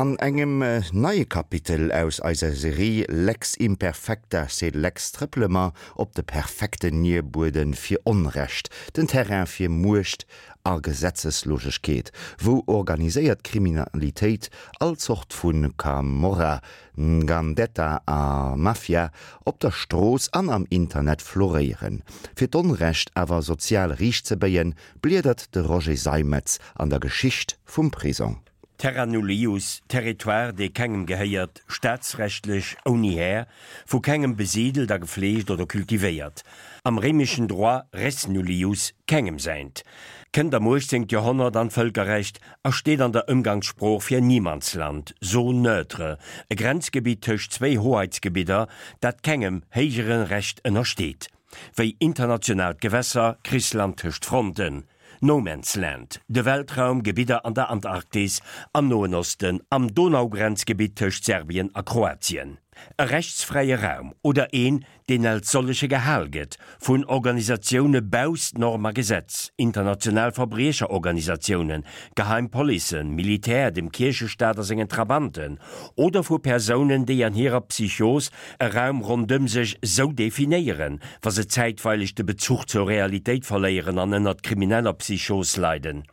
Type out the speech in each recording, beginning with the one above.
An engem neie Kapitel aus eiser Serie Lex Imperfecta sed Lex trëppele mer op de perfekten Nierbuede fir Onrecht, den Terrain fir Muecht a Gesetzeslosegkeet, wou organiséiert Kriminalitéit, all Zort vu Camorra, Ngandetta a Mafia op der Strooss an am Internet floréieren. Fir d'Onrecht awer sozial riichtzebéien, bliedert de Roger Seimetz an der Geschicht vum Prisong. Terra nullius, Territoire, dee kengem gehéiert, staatsrechtlech ouni Här, vu kengem besidelt a gefleegt oder kultivéiert, am réimeschen Droit res nullius, kengem säint, kënnt am 18. Joerhonnert an d'Vëlkerrecht a steet an der Ëmgangssprooch fir Niemandsland, Zone neutre, e Grenzgebitt tëscht zwéi Hoheitsgebidder, dat kengem héijere Recht ënnersteet. Wéi internationaalt Gewässer, Krichsland tëscht Fronten, No Man's Land, de Weltraum, Gebidder an der Antarktis, am Noen Osten, am Donaugrenzgebitt tëscht Serbien a Kroatien. E rechtsfräie Raum oder een, deen als solleche gehal gëtt, vun Organisatioune bausst Norm a Gesetz, international Verbriecherorganisatiounen, Geheim Policen, Militär, dem Kierchestaat a sengen Trabanten, oder vu Persounen, déi an hirer Psychos e Raum rondëm sech sou definéieren, wa se zäitweileg de Bezuch zur Realitéit verléieren an ënnert krimineller Psychos leiden.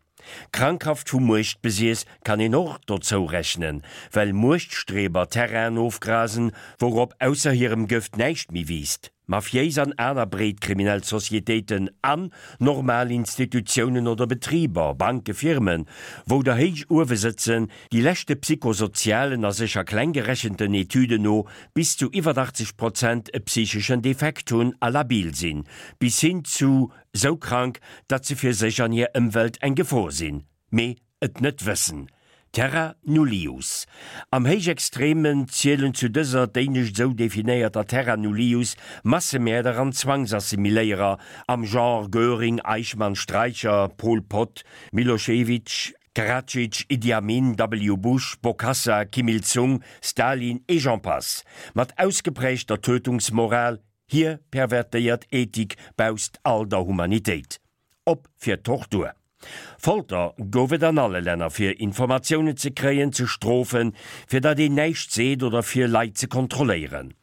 Krankhaft vu Muechtbesiess kann een och dozou rechnen, well Muechtstreber Terrainen ofgrasen, wourop ausser hirem Gëft näischt méi wiisst. Mafiéis an aner breet kriminell Societéiten an normal Institutiounen oder Betriber, Banke, Firmen, wou der héich uewe sëtzen, déi leschte psychosozialen a sécher kleng gerechenten Etüden no bis zu iwwer 80 Prozent e psycheschen Defekt hunn a labil sinn, bis hin zu sou krank, datt se fir sech an hir Ëmwelt eng Gefor sinn. Mee et net wëssen. Terra nullius. Am Héichextremen zielen zu dëser d'éinescht esou definéierter Terra nullius Massemäerder an Zwangsassimiléierer am Genre Göring, Eichmann, Streicher, Pol Pot, Milošević, Karadzic, Idi Amin, W. Bush, Bokassa, Kim Il Sung, Stalin et j'en passe. Mat ausgeprägter Tötungsmoral, hir pervertéiert Ethik bausst all der Humanitéit. Op fir Tortur. Folter gouf et an alle Länner fir Informatiounen ze kréien, ze strofen, fir datt een näischt seet oder fir Leit ze kontrolléieren.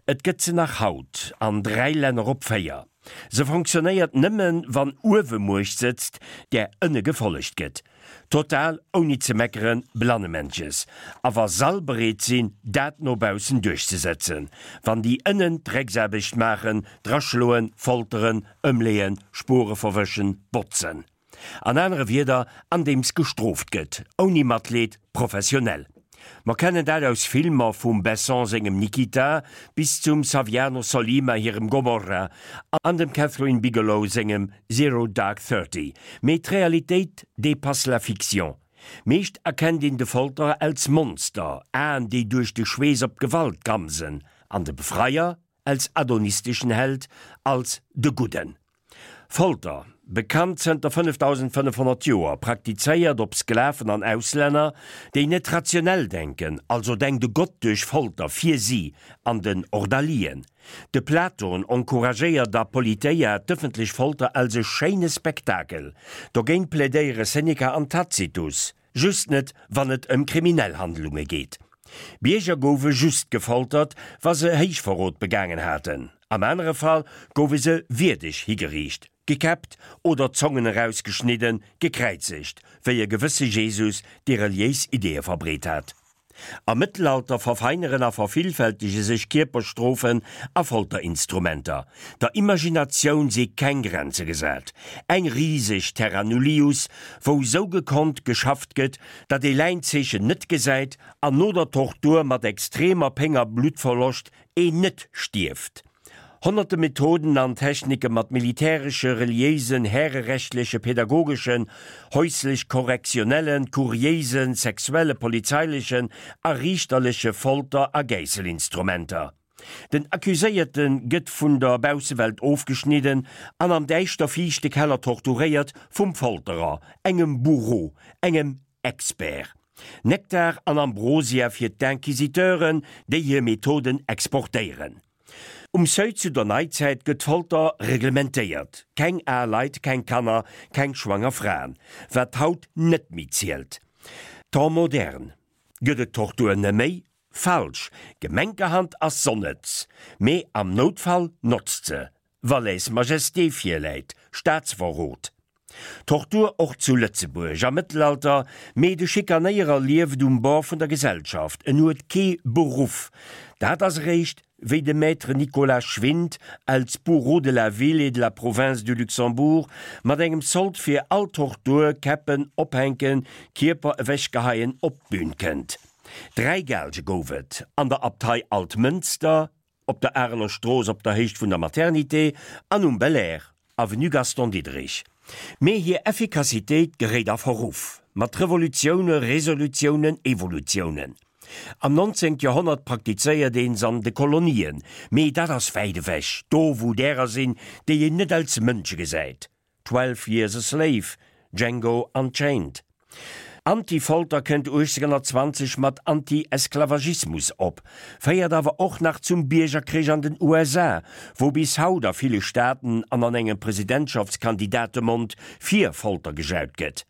Et gëtt se nach haut an 3 Länner op 4. Se fonctionnéiert nëmmen wann uewe Muecht sëtzt, där ënne gefollegt gëtt. Total ouni ze meckeren, Blannemännches. A wa s'all bereet sinn, dat no baussen duerchzesetzen. Wann déi ënnen d'Drecksaarbecht maachen, draschloen, folteren, ëmleeën, Spure verwëschen, botzen. An anere Wierder, andeems gestrooft gëtt, ouni Matleed, professionell. Mer kennen dat aus Filmer vum Besson sengem Nikita bis zum Saviano Sollima hirem Gomorra an dem Kathryn Bigelow sengem Zero Dark Thirty. Mee d'Realitéit dépasse la fiction. Meescht erkennt een de Folterer als Monster, Aen déi duerch de Schweess op d'Gewalt gramsen, an de Befreier als adonisteschen Held, als de Gudden. Folter, bekannt zënter 5500 Joer, praktizéiert op Sklaven an Auslänner, déi net rationell denken, also denkt e Gott duerch Folter fir si an den Ordalien. De Platon encouragéiert a Politeia d'ëffentlech Folter als e schéine Spektakel. Dogéint plädéiere Seneca an Tacitus. Just net, wann et ëm kriminell Handlunge geet. Bierger goufe just gefoltert, wa se Héichverrot begaangen haten. Am anere Fall goufe se wierdeg higeriicht, gekäppt oder d'Zongen erausgeschnidden, gekräizegt, wéi e gewësse Jesus, dee reliéis Ideeë verbreet hat. Am Mëttelalter verfeineren a vervillfältege sech Kierperstrofen a Folterinstrumenter. Der Imaginatioun si keng Grenze gesat. Eng riseg Terra Nullius, wou sou gekonnt geschafft gëtt, datt ee Läinzeechen net gesäit an no der Tortur mat extremer Péng a Bluttverloscht een net stierft. Honnerte Methoden an Technike mat militäresche, reliéisen, härerechtleche, pädagogeschen, häuslech-korrektionellen, kuriéisen, sexuelle, polizeilechen a riichterleche Folter a Gäisselinstrumenter. Den Accuséierte gëtt vun der Baussewelt ofgeschnidden an am däischter fiichte Keller torturéiert vum Folterer, engem Bourreau, engem Expert. Nektar an Ambrosia fir d'Inquisiteuren, déi hir Methoden exportéieren. Um Seuil zu der Neizäit gëtt d'Folter reglementéiert, keng al Leit, keng Kanner, keng schwanger Fraen, wat haut net méi zielt. Temps moderne. Gëtt et Tortur neméi? Falsch, Gemenkerhand ass s'onnëtz, mee am Noutfall notzt se, wa Lèse-majesté virläit, Staatsverrot. Tortur och zu Lëtzebuerg am Mëttelalter, mee de Schikanéierer lieft um Bord vun der Gesellschaft, en huet kee Beruff. Dat ass eréischt, wéi de Maître Nicolas Schwind, als Bourreau de la ville et de la province du Luxembourg, mat engem Sold fir all Tortur, Käppen, Ophänken, Kierper ewechgeheien, op d'Bün kënnt. 3 Gaalge gouf et an der Abtei Altmënster, op der Areler Strooss op der Héicht vun der Maternité an um Belair, Avenue Gaston Diderich. Mee hir Effikassitéit geréit a Verruff mat Revolutioune, Resolutiounen, Evolutiounen. Am 19. Joerhonnert praktizéiert een s'an de Kolonien, mee dat ass wäit ewech, do wou därer sinn, déi een net als Mënsche gesäit. 12 Years a Slave, Django Unchained. Anti-Folter kënnt 1820 mat Anti-Esklavagismus op, féiert awer och nach zum Biergerkrich an den USA, wou bis haut a ville Staaten an an engem Presidentschaftskandidatemond fir Folter gejaut gëtt.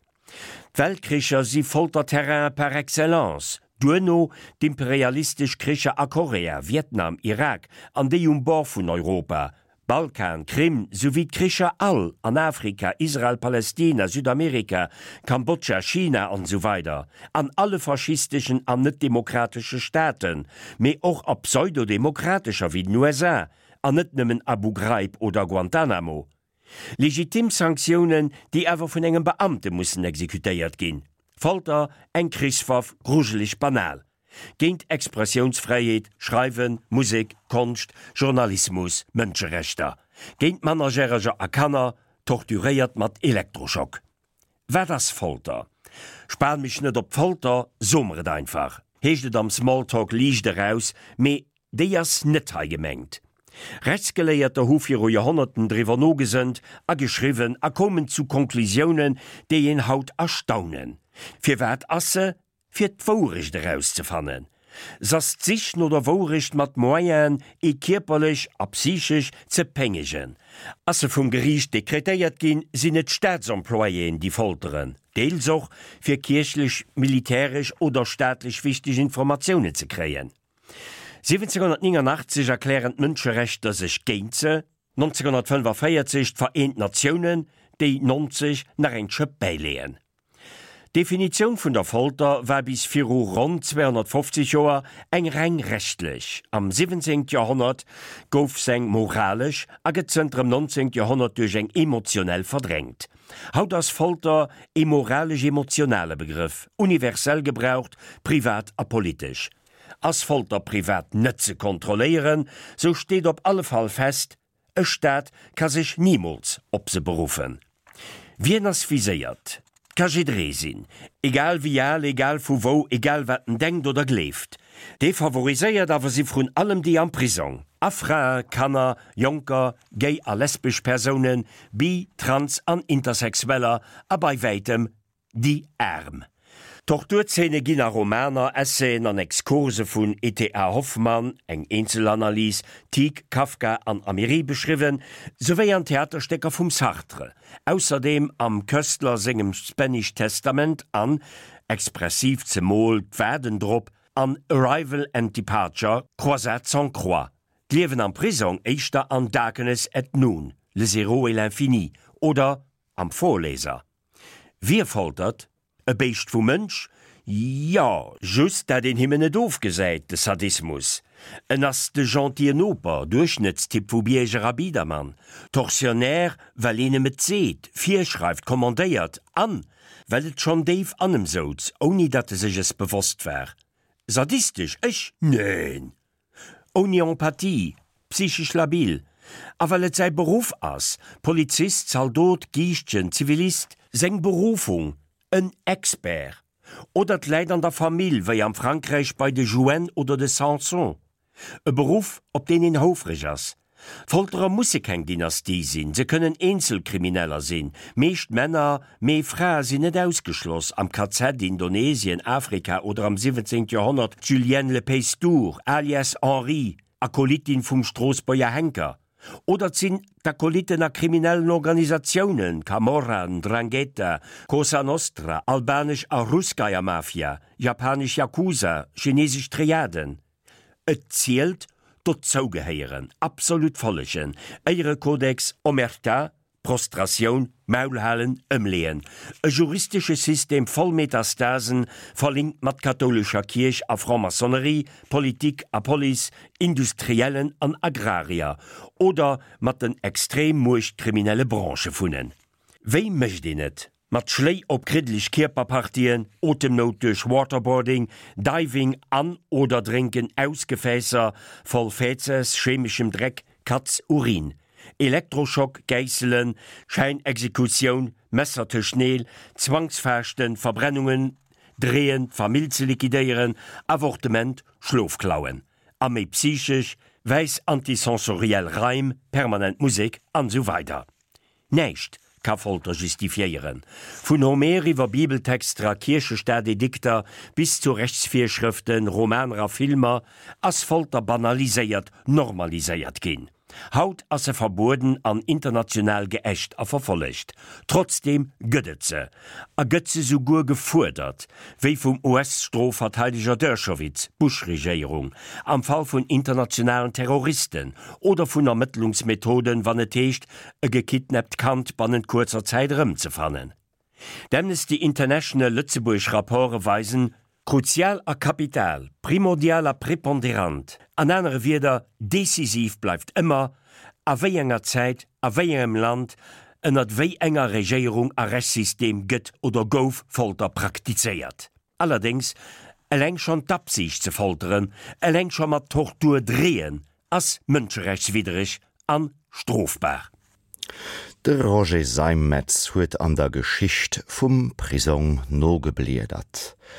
D'Weltkricher si Folterterrainen par excellence, duerno d'imperialistesch Kricher a Korea, Vietnam, Irak an déi um Bord vun Europa, Balkan, Krim, souwéi d'Kricher all an Afrika, Israel, Palestina, Südamerika, Kambodscha, China an esou weider an alle faschisteschen an net-demokratesche Staaten, mee och a pseudo-demokratescher wéi den USA, an net nëmmen Abu Ghraib oder Guantanamo. Legitim Sanktiounen, déi awer vun engem Beamte mussen exekutéiert ginn. Folter, eng Krichswaff, grujeleg banal. Géint Expressiounsfräiheet, Schreiwen, Musek, Konscht, Journalismus, Mënscherechter. Géint Mannerjäreger a Kanner, torturéiert mat Elektroschock. Wat ass Folter? Span mech net op d'Folter, so mer et einfach, heescht et am Smalltalk liicht eraus, mee déi ass net hei gemengt. Rechtsgeléierter hu viru Joerhonnerten driwwer nogesënnt a geschriwwen a koumen zu Konklusiounen, déi een haut erstaunen. Firwat ass se fir d'Wourecht erauszefannen. S'ass d'Sich no der Wourecht mat Moyenen, ee kierperlech a psychesch ze péngegen. Ass se vum Geriicht dekretéiert ginn, sinn et d'Staatsemployéen, déi folteren, deels och, fir kierchlech, militäresch oder staatlech wichteg Informatiounen ze kréien. 1789 erklären d'Mënscherechter sech géint se, 1945 d'Vereent Natiounen, déi 90 nach eng Schëpp bäileeën. D'Definitioun vun der Folter war bis viru ronn 250 Joer eng reng rechtlech. Am 17. Joerhonnert gouf s'eng moralesch a gëtt zënter dem 19. Joerhonnert duerch eng emotionell verdrängt. Haut ass Folter ee moralesch-emotionale Begrëff, universell gebraucht, privat a politesch. Ass Folter privat net ze kontrolléieren, sou steet op alle Fall fest, E Staat ka sech nimools op se beruffen. Wien ass viséiert? 't ka jidderee sinn, egal wéi al, egal vu wou, egal wat en denkt oder gleeft. Defavoriséiert awer si vrun allem déi am Prisong, a Frae, Kanner, Jonker, gay a lesbesch Persounen, bi-, trans an Intersexueller a bei wäitem Déi Aarm. Torturzeene ginn a Romaner, Essayen an Exkurse vun E.T.A. Hoffmann, eng Eenzelanalys, Tieck, Kafka an Amiry beschriwwen, souwéi an Theaterstécker vum Sartre, ausserdeem am Koestler sengem Spanish Testament an, expressiv zemol d'Waarden drop, an Arrival and Departure, Croisade sans croix, d'Liewen am Prisong éischter an Darkness at Noon, Le zéro et l'infini oder am Vorleser. Wie foltert? E Béischt vu Mënsch? Jo, just dat een him en net ofgesäit, de Sadismus. En ass de gentille Noper, Duerchschnëttstyp vu Bierger a Biedermann, Tortionnaire, well een em et seet, virschreift, kommandéiert, an well et schonn déif an em souz, ouni datt e sech es bewosst war. Sadistesch? Ech? Neen! Ouni Empathie, psychesch labil, a well et säi Beruff ass, Polizist, Zaldot, Giischtjen, Zivilist, seng Berufung, en Expert. Oder 't läit an der Famill, wéi am Frankräich bei de Jouenne oder de Sanson. E Beruff, op deen een houfreg ass. D'Folterer musse keng Dynastie sinn, se kënnen Eenzelkrimineller sinn, meescht Männer, mee Frae sinn net ausgeschloss, am KZ, Indonesien, Afrika oder am 17. Joerhonnert d'Julienne Le Paystour, alias Henri, Akolytin vum Stroossbuerger Henker. Oder et sinn d'Akolytten a kriminellen Organisatiounen, Camorra, Ndrangheta, Cosa Nostra, albanesch a Russkaja Mafia, japanesch Yakuza, chinesesch Triaden. Et zielt, dozougehéieren, absolut follegen, Éierekodex, Omerta, Prostratioun, Maul halen, ëmleeën. E juristesche System voll Metastasen, verlinkt mat kathoulescher Kierch a Franc-Maçonnerie, Politik a Police, Industriellen an Agrarier oder mat den extrem muechtkriminelle Branchë vunnen. Wéi mécht een et? Mat Schléi op kriddeleg Kierperpartien, Otemnout duerch Waterboarding, Diving an oder Drénken aus Gefäässer voll Fäzes, chemeschem Dreck, Katz, Urin, Elektroschock, Gäisselen, Schäinexekutioun, Messer tëscht Neel, Zwangsfaaschten, Verbrennungen, Dreeën, d'Famill ze liquidéieren, Avortement, Schlofklauen a méi psychesch, wäiss antisensoriell Raim, permanent Musek an esou weider. Näischt ka Folter justifiéieren. Vun Homer iwwer Bibeltexter a Kierchestaatedikter bis zu Rechtsvirschrëften, Romaner a Filmer ass Folter banaliséiert, normaliséiert ginn. Haut ass se verbueden an international geächt a verfollegt. Trotzdeem gëtt et se. A gëtt se souguer gefuerdert, wéi vum US-Strofverteideger Dershowitz, Bush-Regéierung, am Fall vun internationalen Terroristen oder vun Ermëttlungsmethoden, wann et heescht, e gekidnappt Kand bannent kuerzer Zäit erëmzefannen. D'Amnesty International Lëtzebuerg Rapporte weisen, Kruzial a kapital, primordial a preponderant, an anere Wierder, decisiv bleift ëmmer, a wéi enger Zäit, a wéi engem Land, ënnert wéi enger Regéierung a Rechtssystem gëtt oder gouf Folter praktizéiert. Allerdéngs, eleng schonn d'Absicht ze folteren, eleng scho mat Tortur dreeën, ass mënscherechtswiddereg an strofbar. De Roger Seimetz huet an der Geschicht vum Prisong nogebliedert.